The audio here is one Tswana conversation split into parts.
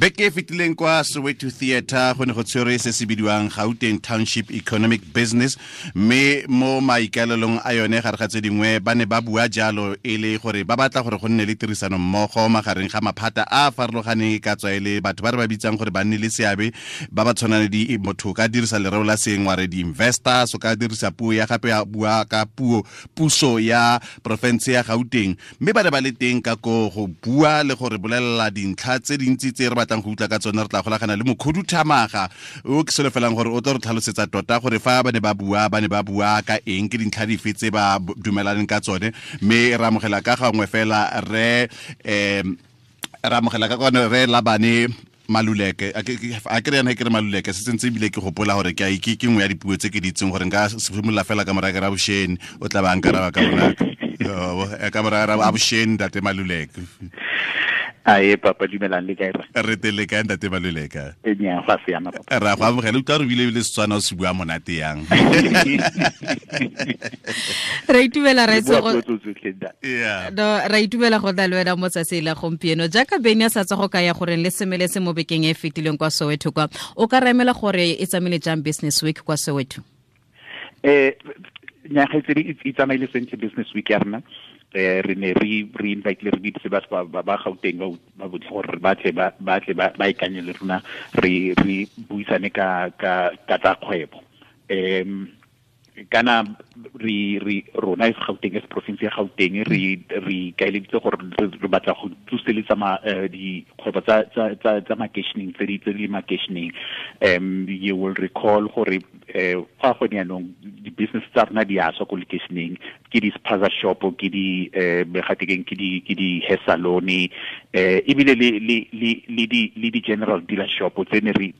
Beke e fetileng kwa Soweto Theatre go ne go tshwerwe se se bidiwang Gauteng Township Economic Business, mme mo maikaelelong a yone gare ga tse dingwe ba ne ba bua jalo e le gore ba batla gore go nne le tirisano mmogo magareng ga maphata a a farologaneng, e ka tswa e le batho ba re ba bitsang gore ba nne le seabe ba ba tshwanang le di motho ka dirisa lereo la seng wa re di-investors, o ka dirisa puo ya gape ya bua ka puo puso ya porofense ya Gauteng, mme ba ne ba le teng ka ko go bua le gore bolelela dintlha tse dintsi tse re batlang go utlwa ka tsone. Re tla golagana le mokhuduthamaga o ke solofelang gore o tlo re tlhalosetsa tota gore fa ba ne ba bua ba ne ba bua ka eng, ke dintlha dife tse ba dumelaneng ka tsone. Mme re amogela ka gangwe fela re re amogela ka kwane re Labane Maluleke. A ke re yana ke re Maluleke se sentse, ebile ke gopola gore ke ke ke nngwe ya dipuo tse ke di itseng gore nka simolola fela ka moraya ke ra bosheni, o tla ba nkaraba ka bonako ka moraya ra bosheni. Ntate Maluleke. Ae papa, dumelang, le kae? Re teng, le kae, ntate Maluleke? E nya go siama papa. Ra go amogela. Utlwa re bile bile Setswana o se bua monate yang. Ra itumela ra itse go no ra itumela go tla le wena mo tsatsi la gompieno. Jaaka Beny a sa tswa go kaya gore le semeletse mo bekeng e e fetileng kwa Soweto kwa, o ka remela gore e tsamaile jang Business Week kwa Soweto? Nyaga tse di e tsamaile sentle Business Week ya rena. Re ne re invite le re bitse ba ba Gauteng ba botlhe gore ba tle ba ikanye le rona, re buisane ka tsa kgwebo. Kana re rona e Gauteng, as province ya Gauteng, re kaeleditse gore re batla go tsoseletsa dikgwebo tsa makeisheneng tse di le makeisheneng. You will recall gore fa gone yaanong di-business tsa rona di a swa ko lekeisheneng, ke di-spaza shop, ke di gatekeng ke di hair salon, ebile le di general dealer shop tse ne re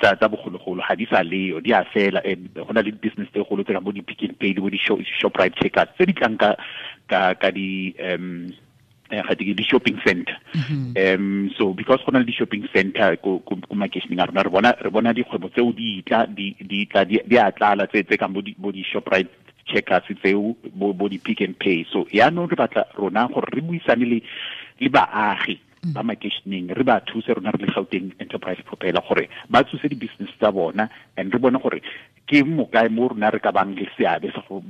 tsa bogologolo ga di sa leyo, di a fela. Go na le di-business tse golo tse ka bo di-Pick n Pay le bo di-Shoprite Checkers tse di tlang ka di ga ke di shopping center. So because go na le di shopping center ko makeisheneng a rona, re bona dikgwebo tseo di tla di a tlala tse kang bo di Shoprite Checkers tseo, bo di Pick n Pay. So yaanong re batla rona gore re buisane le baagi ba makeisheneng, re ba thuse rona re le Gauteng Enterprise Propeller gore ba tsose di-business tsa bona, and re bone gore ke mokae mo rona re ka bang le seabe sa go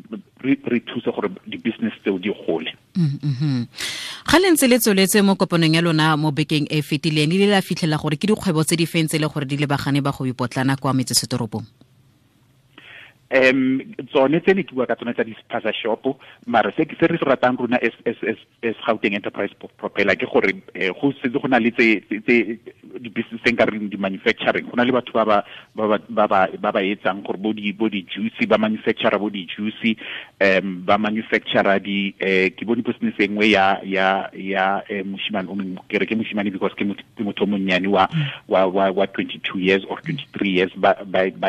re thuse gore di-business tseo di gole. Ga le ntse le tsweletse mo kopanong ya lona mo bekeng e fetileng, le la fitlhela gore ke dikgwebo tse di feng tse le gore di lebagane ba go ipotlana kwa metsesetoropong? Tsone tse ne ke bua ka tsone tsa di-spaza shop, mara se re se ratang rona as Gauteng Enterprise Propeller ke gore go setse go na le tse di-business tse nka reng di-manufacturing. Go na le batho ba ba etsang gore bo di juice, ba manufacturer bo di juice, ba manufacturer di ke bone business e nngwe ya moshimane o mongwe, ke re ke moshimane because ke motho o monnyane wa 22 years or 23 years, ba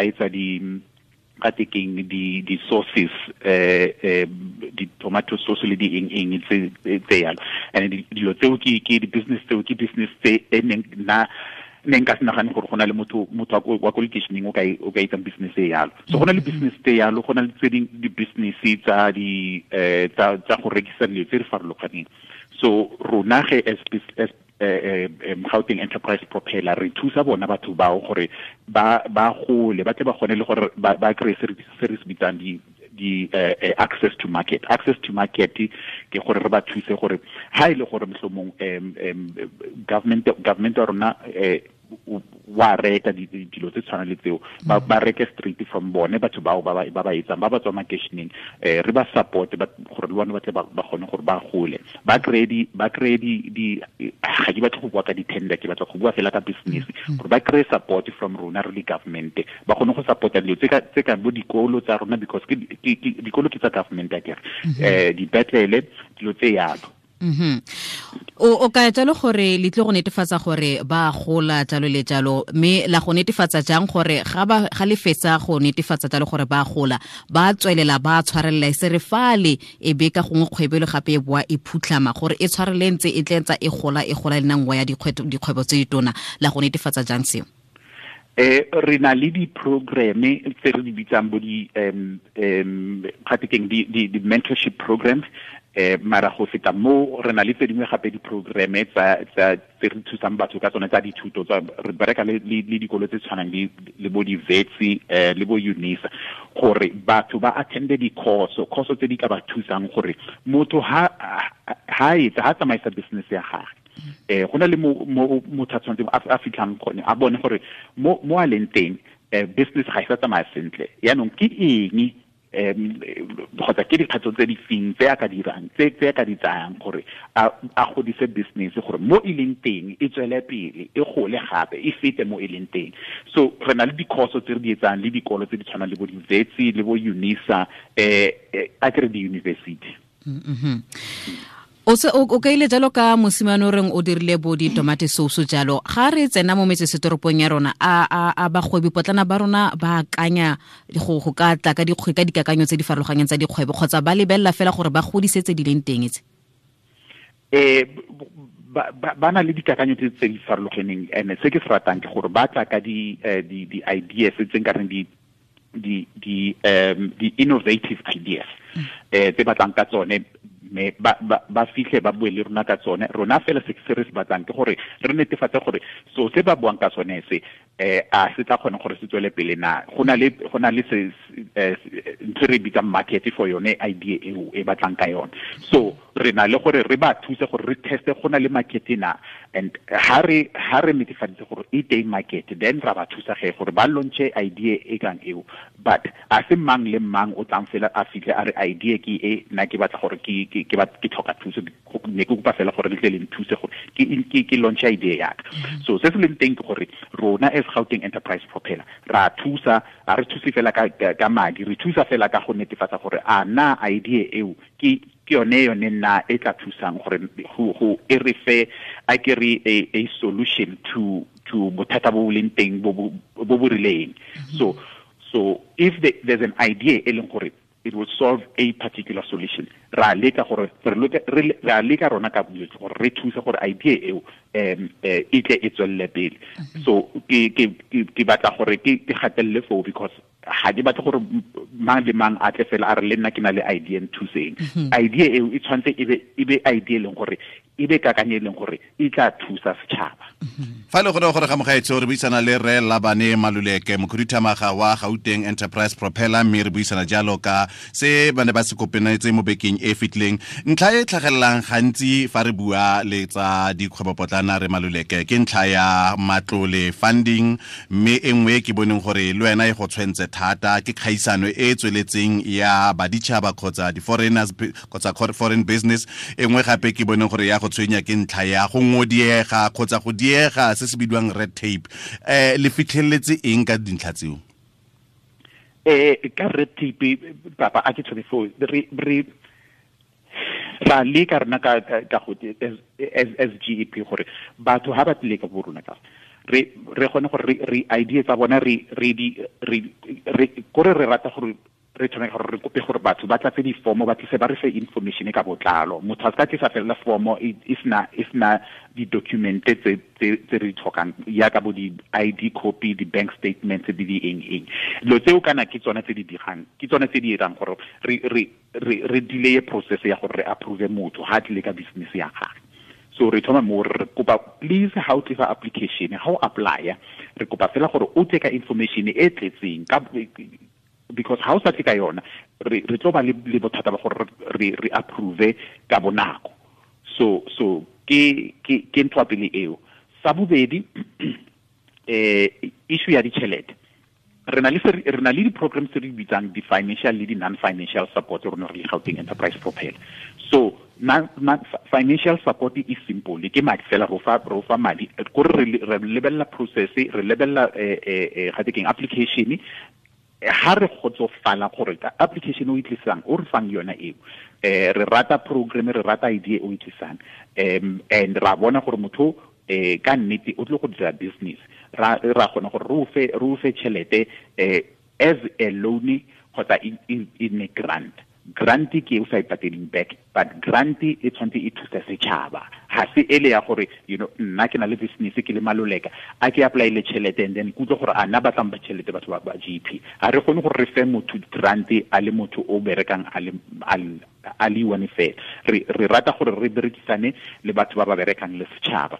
etsa di ka tekeng di sauces, di tomato sauce le di eng eng tse yalo. And dilo tseo ke di business tseo, ke business tse e neng na ne nka se nagane gore go na le motho wa ko lekeisheneng o ka etsang business e yalo. So go na le business tse yalo, go na le tse ding di-business tsa di tsa go rekisa dilo tse di farologaneng. So rona ge as Gauteng Enterprise Propeller re thusa bona batho bao gore ba gole, ba tle ba kgone le gore ba kry se re se bitsang di access to market. Access to market ke gore re ba thuse gore ha ile gore mohlomong government ya rona wa reka dilo tse tshwana le tseo, ba reke straight from bone batho bao ba etsang ba tswa makeisheneng. Re ba support gore le bone ba tle ba kgone gore ba gole, ba kry di ga ke batla go bua ka di-tender, ke batla go bua fela ka business, gore ba kry support from rona re le government, ba kgone go supporta dilo tse ka bo dikolo tsa rona, because ke dikolo ke tsa government akere, dipetlele, dilo tse yalo. O ka jalo gore le tle go netefatsa gore ba gola jalo le jalo, mme la go netefatsa jang gore ga le fetsa go netefatsa jalo gore ba gola, ba tswelela ba tshwarelela, e se re fale e be ka gongwe kgwebo le gape e boa e phutlhama, gore e tshwarele ntse e tle ntsa e gola, e gola le nngwe ya dikgwebo tse ditona? La go netefatsa jang seo? Re na le di-programme tse re di bitsang bo di gape keng di mentorship programs. Mara go feta mo re na le tse dingwe gape di-programme tsa tse re thusang batho ka tsone tsa dithuto tsa re bereka le dikolo tse tshwanang le bo di-Wits le bo UNISA gore batho ba attende di-course course tse di ka ba thusang gore motho ha etsa ha tsamaisa business ya gagwe go na le mo motho a tshwanetseng a fitlhang gone a bone gore mo a leng teng business ga e sa tsamaya sentle yaanong ke eng kgotsa ke dikgatso tse di feng tse a ka dirang tse a ka di tsayang gore a godise business gore mo e leng teng e tswele pele e gole gape e fete mo e leng teng. So re na le di-course tse re di etsang le dikolo tse di tshwanang le bo di-Wits le bo UNISA a kere di-university. O kaile jalo ka mosimane o reng o dirile bo ditomate sauce jalo ga re tsena mo metsesetoropong ya rona a bagwebi potlana ba rona ba akanya go ka tla ka ka dikakanyo tse di farologaneng tsa dikgwebo kgotsa ba lebelela fela gore ba godise tse di leng teng tse? Ba na le dikakanyo tse di farologaneng and se ke se ratang ke gore ba tla ka di ideas tse nka reng di innovative ideas tse batlang ka tsone me ba fitlhe ba bue le rona ka tsone. Rona fela se re se batlang ke gore re netefatse gore so se ba buang ka tsone se a se tla kgone gore se tswele pele na go na le se ntho re bitsang market for yone idea eo e batlang ka yone. So re na le gore re ba thuse gore re teste go na le market na and ha re netefaditse gore e teng market then ra ba thusa ge gore ba launche idea e kang eo. But a se mang le mang o tlang fela a fitlhe a re idea ke e nna ke batla gore ke tlhoka thuso ne ke kopa fela gore le tle le nthuse gore ke launch idea ya ka. So se se leng teng ke gore rona as Gauteng Enterprise Propeller ra thusa, a re thuse fela ka madi, re thusa fela ka go netefatsa gore a na idea eo ke yone nna e tla thusang gore go e re fe a ke re a solution to bothata bo leng teng bo bo rileng. So if there's an idea e leng gore it will solve a particular solution, ra leka gore ra leka rona ka bojotlhe gore re thuse gore idea eo e tle e tswelele pele. So ke batla gore ke gatelele foo because ga ke batle gore mang le mang a tle fela a re le nna ke na le idea nthuseng. Idea eo e tshwanetse e be idea e leng gore e be kakanyo e leng gore e tla thusa setšhaba. Fa le gore ga mogaetsho re buisana le Rre Labane Maluleke, mokhuduthamaga wa Gauteng Enterprise Propeller, mme re buisana jalo ka se ba ne ba se kopanetse mo bekeng e fetileng. Ntlha e tlhagelelang gantsi fa re bua le tsa dikgwebopotlana re Maluleke ke ntlha ya matlole funding, mme e nngwe ke boneng gore le wena e go tshwentse thata ke kgaisano e tsweletseng ya baditšhaba kgotsa di-foreigners kgotsa foreign business. E nngwe gape ke boneng gore ya go tshwenya ke ntlha ya go ngodiega kgotsa go diega se se bidiwang red tape. Le fitlheletse eng ka dintlha tseo? Ka red tape papa a ke tshwane foo re ra leka rena ka go as GEP gore batho ha ba tlile ka bo rona ka re kgone gore re idea tsa bona re kore re rata gore re tshwanetse gore re kope gore batho ba tlatse difomo ba tlise ba re fe information ka botlalo. Motho a ka tlisa fela fomo e sena di-document tse re di tlhokang yaka bo di-ID copy, di-bank statements le di eng eng. Dilo tseo kana ke tsone tse di dirang, ke tsone tse di dirang gore re delay process ya gore re approve motho ha tlile ka business ya gagwe. So re thoma mo re kopa please ha o tlisa application, ha o apply, re kopa fela gore o tle ka information e tletseng ka because ha o sa tle ka yona re tlo ba le bothata ba gore re approve ka bonako. So ke ntho ya pele eo. Sa bobedi, issue ya ditšhelete. Re na le di-programs tse re bitsang di-financial le di-non-financial support rona re le Gauteng Enterprise Propeller. So financial support is simple, ke madi fela ro fa madi kore re lebella process, re lebella ga te keng application. Ha re kgotsofala gore ka application o e tlisang o re fang yona eo, re rata program, re rata idea o e tlisang, and ra bona gore motho ka nnete o tlile go dira business, ra kgona gore re o fe tšhelete as a loan kgotsa in a grant. Grant ke o sa e pateleng back, but grant e tshwanetse e thusa setšhaba. Ha se ele ya gore you know nna ke na le business ke le Maluleka a ke apply le tšhelete and then kutlwe gore a nna batlang ba tšhelete batho ba GP. Ha re kgone gore re fe motho grant a le motho o berekang a a le one fela. Re rata gore re berekisane le batho ba ba berekang le setšhaba,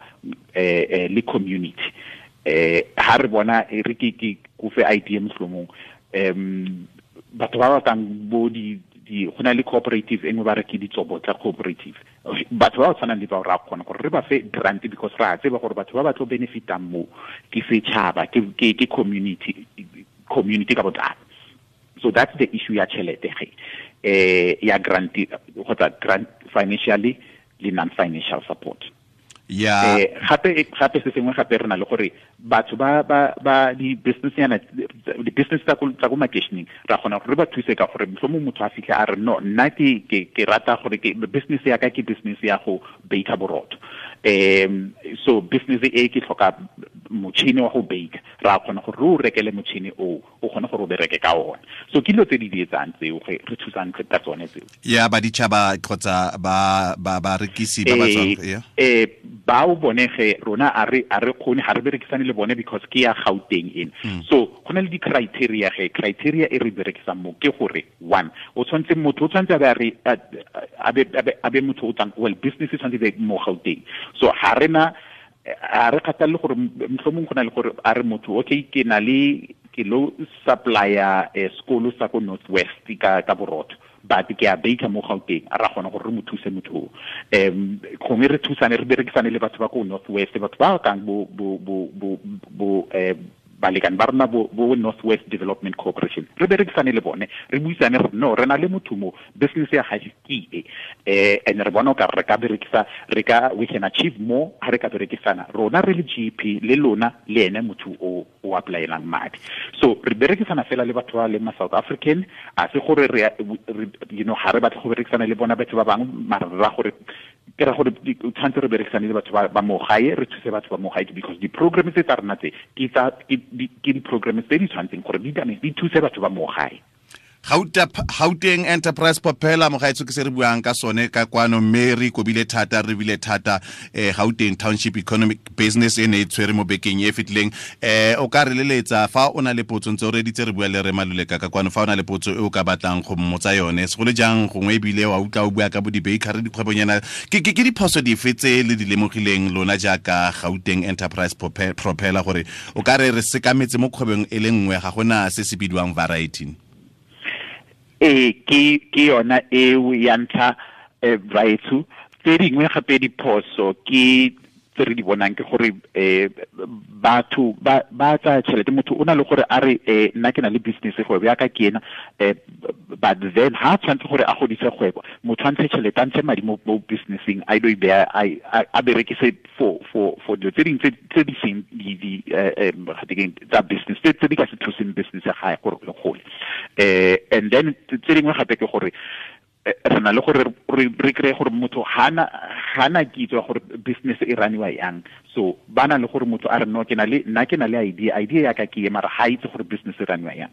le community. Ha re bona re ke kofe idea mohlomong, batho ba ba kang bo di go na le cooperative e nngwe ba re ke Ditsobotla cooperative, batho ba ba tshwanang le bao ra kgona gore re ba fe grant, because ra tseba gore batho ba ba tlo benefitang mo ke setšhaba, ke community ka botlalo. So that's the issue ya tšhelete ge, ya grant kgotsa grant financially le non-financial support. Yeah. Gape se sengwe gape re na le gore batho ba ba ba di business yana, di business tsa ko makeisheneng, ra kgona gore re ba thuse ka gore mohlomong motho a fitlhe a re no, nna ke rata gore ke business ya ka ke business ya go baker borotho, so business e ke tlhoka motšhini wa go bake, ra kgona gore re o rekele motšhini o kgone gore o bereke ka ona. So ke dilo tse di etsang tseo re thusang ka tsone tseo. Ya ba ditšhaba kgotsa ba ba barekisi ba ba tswang, ya bao bone ge rona a re kgone, ga re berekisane le bone because ke ya Gauteng ena. So go na le di-criteria ge, criteria e re berekisang mo ke gore one, o tshwanetse motho o tshwanetse a be motho o tswang, well, business e tshwanetse be mo Gauteng. So ga re na, a re kgathalle gore mohlomong go na le gore a re motho okay, ke na le ke lo supplier sekolo sa ko North West ka borotho, but ke a baker mo Gauteng, a ra kgona gore re mo thuse motho o. Gongwe re thusane, re berekisane le batho ba ko North West, batho ba kang bo balekane ba rona bo North West Development Corporation, re berekisane le bone, re buisane re no, re na le motho mo, business ya gage ke e, and re bona o ka re ka berekisa, re ka, we can achieve more ha re ka berekisana rona re le GP le lona le ene motho o apply-elang madi. So re berekisana fela le batho ba le ma South African, a se gore re, you know, ha re batle go berekisana le bona batho ba bangwe, mara ra gore ke ra gore tshwanetse re berekisane le batho ba mo gae, re thuse batho ba mo gae, because di-programs tse tsa rona tse ke di-programs tse di tshwanetseng gore di thuse batho ba mo gae. Gauteng Enterprise Propeller, mogaetso ke se re buang ka sone ka kwano, mme re ikobile thata, re bile thata Gauteng Township Economic Business e ne e tshwere mo bekeng e fetileng. O ka re leletsa fa o na le potso, ntse o reditse re bua le re Maluleka ka kwano, fa o na le potso e o ka batlang go mmotsa yone, segolo jang gongwe ebile wa utlwa o bua ka bo di-bakery, dikgwebonyana, ke diphoso dife tse le di lemogileng lona jaaka Gauteng Enterprise Propeller, gore o ka re re sekametse mo kgwebong e le nngwe, ga gona se se bidiwang variety? Ke yona eo ya ntlha, raetsho. Tse dingwe gape diphoso ke tse re di bonang ke gore batho ba tsaya tšhelete, motho o na le gore a re nna ke na le business, kgwebo ya ka ke ena, but then ha tshwanetse gore a godise kgwebo, motho a ntshe tšhelete, a ntshe madi mo businesseng, a ilo e beya, a berekise for dilo tse dingwe tse di seng tsa business, tse di ka se thuseng business ya gae gore e gole. And then tse dingwe gape ke gore re na le gore re kry-e gore motho ga na kitso ya gore business e raniwa yang. So ba na le gore motho a re no, ke na le, nna ke na le idea ya ka ke e, mara ga itse gore business e raniwa yang.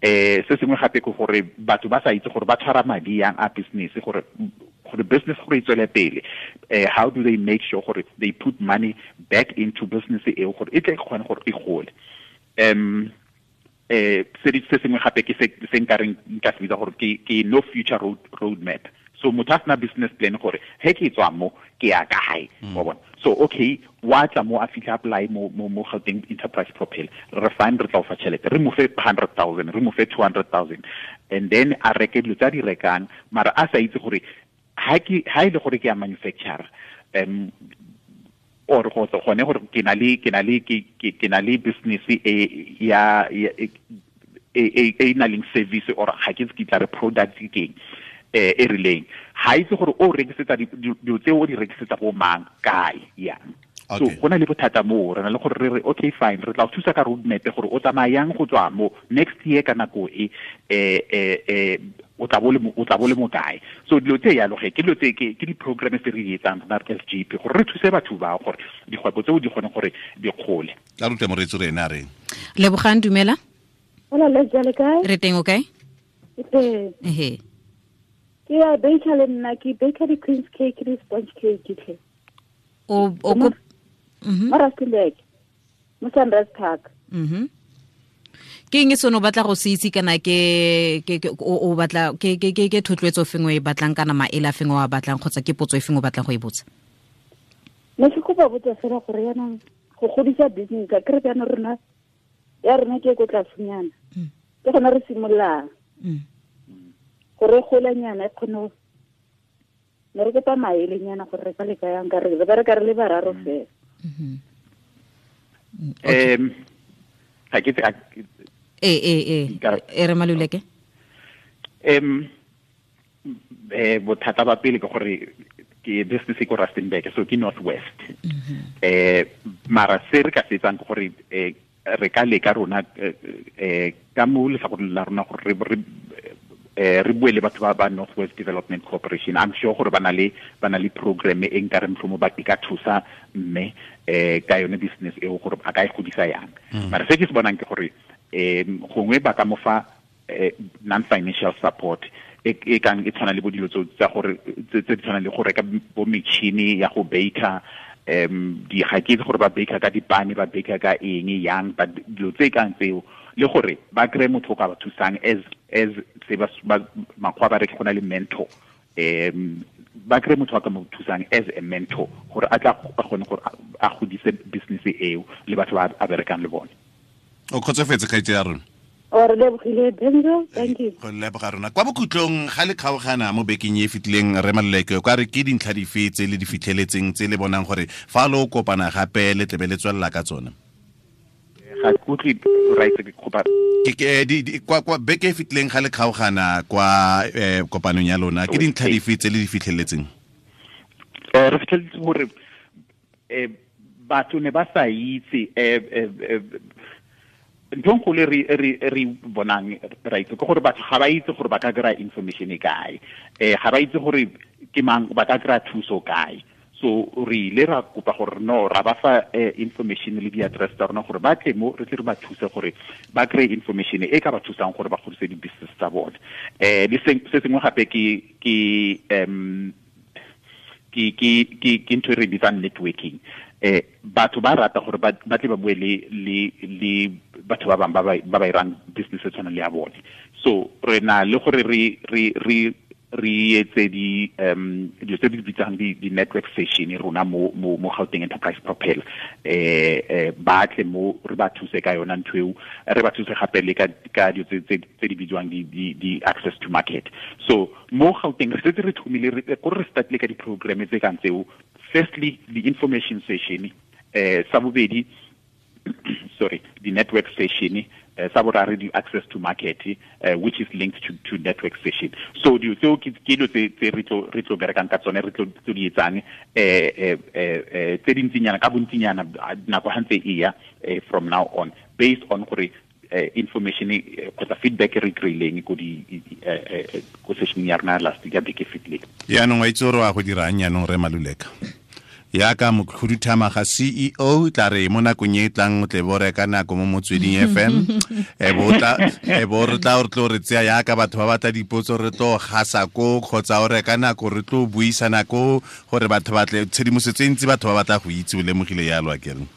Se sengwe gape ke gore batho ba sa itse gore ba tshwara madi yang a business, gore business gore e tswele pele. How do they make sure gore they put money back into business eo gore e tle e kgone gore e gole. Se sengwe gape ke se nka reng nka se bitsa gore ke no future road map. So motho a sena business plan gore he ke tswa mo ke ya kae, wa bona. So okay, wa tla mo a fitlha apply mo Gauteng Enterprise Propeller, re fine, re tla o fa tšhelete, re mo fe 100,000, re mo fe 200,000, and then a reke dilo tsa di rekang, mara a sa itse gore ha e le gore ke ya manufacturer, or go gone gore ke na le business e ya e na leng service, or ga ke ke tla re product ke eng e rileng, ha itse gore o rekisetsa dilo tse o di rekisetsa bo mang kae yang. So go na le bothata mo re na le gore re re okay fine, re tla o thusa ka roadmap gore o tsamayang go tswa mo next year ka nako e o tla bo le mo kae. So dilo tse yalo ge ke dilo tse ke di-programs tse re di etsang rona SGP gore re thuse batho ba gore dikgwebo tseo di kgone gore di gole. Tla rute moreetsi re ene a reng. Lebogang, dumela. Hola, le jale kae? Re teng, o kae? Ke Ehe. Ke ya baker le nna, ke baker di-queen's cake le sponge cake tlhe. O ko Mo Rustenburg, mo Sunrise Park. Ke eng se no batla go se itse kana ke o batla ke thotloetso fengwe e batlang kana maele a fengwe wa batlang kgotsa ke potso e fengwe o batlang go e botsa? Ne ke kopa botsa fela gore yana go godisa business ka kere jaanong rona ya rona ke ko tlasenyana. Ke gona re simololang. Gore golanyana e kgone ne re kopa maelenyana gore re ka leka yang ka re bereka re le bararo fela. Ga ke e re Maluleke. Bothata ba pele ke gore ke business ko Rustenburg, so ke Northwest. Mara se re ka se etsang ke gore re ka leka rona ka mo letlhakoreng la rona gore re bue le batho ba Northwest Development Corporation. I'm sure gore ba na le program e nka re motlhomo ba ka thusa mme ka yone business eo gore a ka e godisa yang. Mara se ke se bonang ke gore gongwe ba ka mo fa non-financial support e kang e tshwana le bo dilo tsa gore tse di tshwanang le go reka bo metšhini ya go baker, di ga ke itse gore ba baker ka dipane, ba baker ka eng yang, ba dilo tse kang tseo, le gore ba kry motho o ka ba thusang as se ba makgwa ba re go na le mentor, ba kry motho a ka mo thusang as a mentor gore a tla kgone gore a godise business eo le batho ba a berekang le bone. O kgotsofetse kgaitse ya rona? O re lebogile Benzo, thank you. Go leboga rona. Kwa bokhutlong ga le kgaogana mo bekeng e fetileng re Maluleke, kwa re ke dintlha dife tse le di fitlheletseng tse le bonang gore fa lo kopana gape le tlebe le tswelela ka tsone? Ga ke utlwe right ke kopa ke kwa beke e fetileng ga le kgaogana kwa kopanong ya lona, ke dintlha dife tse le di fitlheletseng? Re fitlheletse gore batho ne ba sa itse ntho e nkgolo re bonang right ke gore batho ga ba itse gore ba ka kry-a information e kae, ga ba itse gore ke mang ba ka kry-a thuso kae. So re ile ra kopa gore no ra ba fa information le di-address tsa rona gore ba tle mo re tle re ba thuse gore ba kry-e information e ka ba thusang gore ba godise di-business tsa bone. Le se sengwe gape ke ntho e re bitsang networking. Batho ba rata gore ba tle ba bue le batho ba bangwe ba ba irang business e tshwanang le ya bone. So re na le gore re etse di dilo tse di bitsang di network session rona mo Gauteng Enterprise Propel, ba tle mo re ba thuse ka yona ntho eo, re ba thuse gape le ka dilo tse di bidiwang di access to market. So mo Gauteng re setse re thomile gore re startile ka di-programme tse kang tseo. Firstly, the information session, sa bobedi, sorry, the network session, sa boraro the access to market, which is linked to network session. So dilo tseo ke dilo tse re tlo berekang ka tsone, re tlo di etsang tse dintsinyana ka bontsinyana nako ha ntse e ya from now on, based on gore information kgotsa feedback re kry-ileng ko di ko session ya rona last ya beke fetileng. Yaanong wa itse gore wa go dirang yaanong re Maluleka? Yaka mokhuduthamaga CEO tla re mo nakong e tlang o tle bo reka nako mo Motsweding FM, e bo re tla re tlo re tseya yaka batho ba batla dipotso re tlo gasa ko, kgotsa o reka nako re tlo buisana ko gore batho ba tle tshedimosetso e ntsi batho ba batla go itse, o lemogile yalo akere?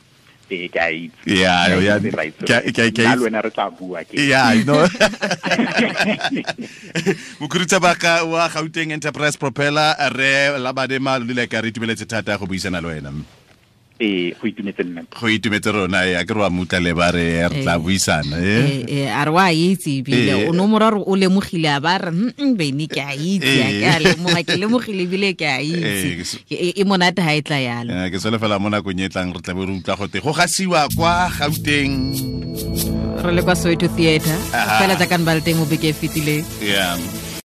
Ke a itse. Yeah, ke le wena re tla bua ke. Yeah, no. Mokhuduthamaga wa Gauteng Enterprise Propeller re Labane Maluleka, re itumeletse thata go buisana le wena. Go itumetse nna. Go itumetse rona, ya ke re wa mutla le ba re re tla buisana. A re wa itse ebile o no moraro o lemogile a ba re bene ke a itse, ke a lemoga, ke lemogile ebile ke a itse. E monate ha e tla yalo. Ke solofela mo nakong e tlang re tla be re utlwa gote go gasiwa kwa Gauteng. Re le kwa Soweto Theatre fela jaaka ba le teng mo beke e fetileng. Yeah.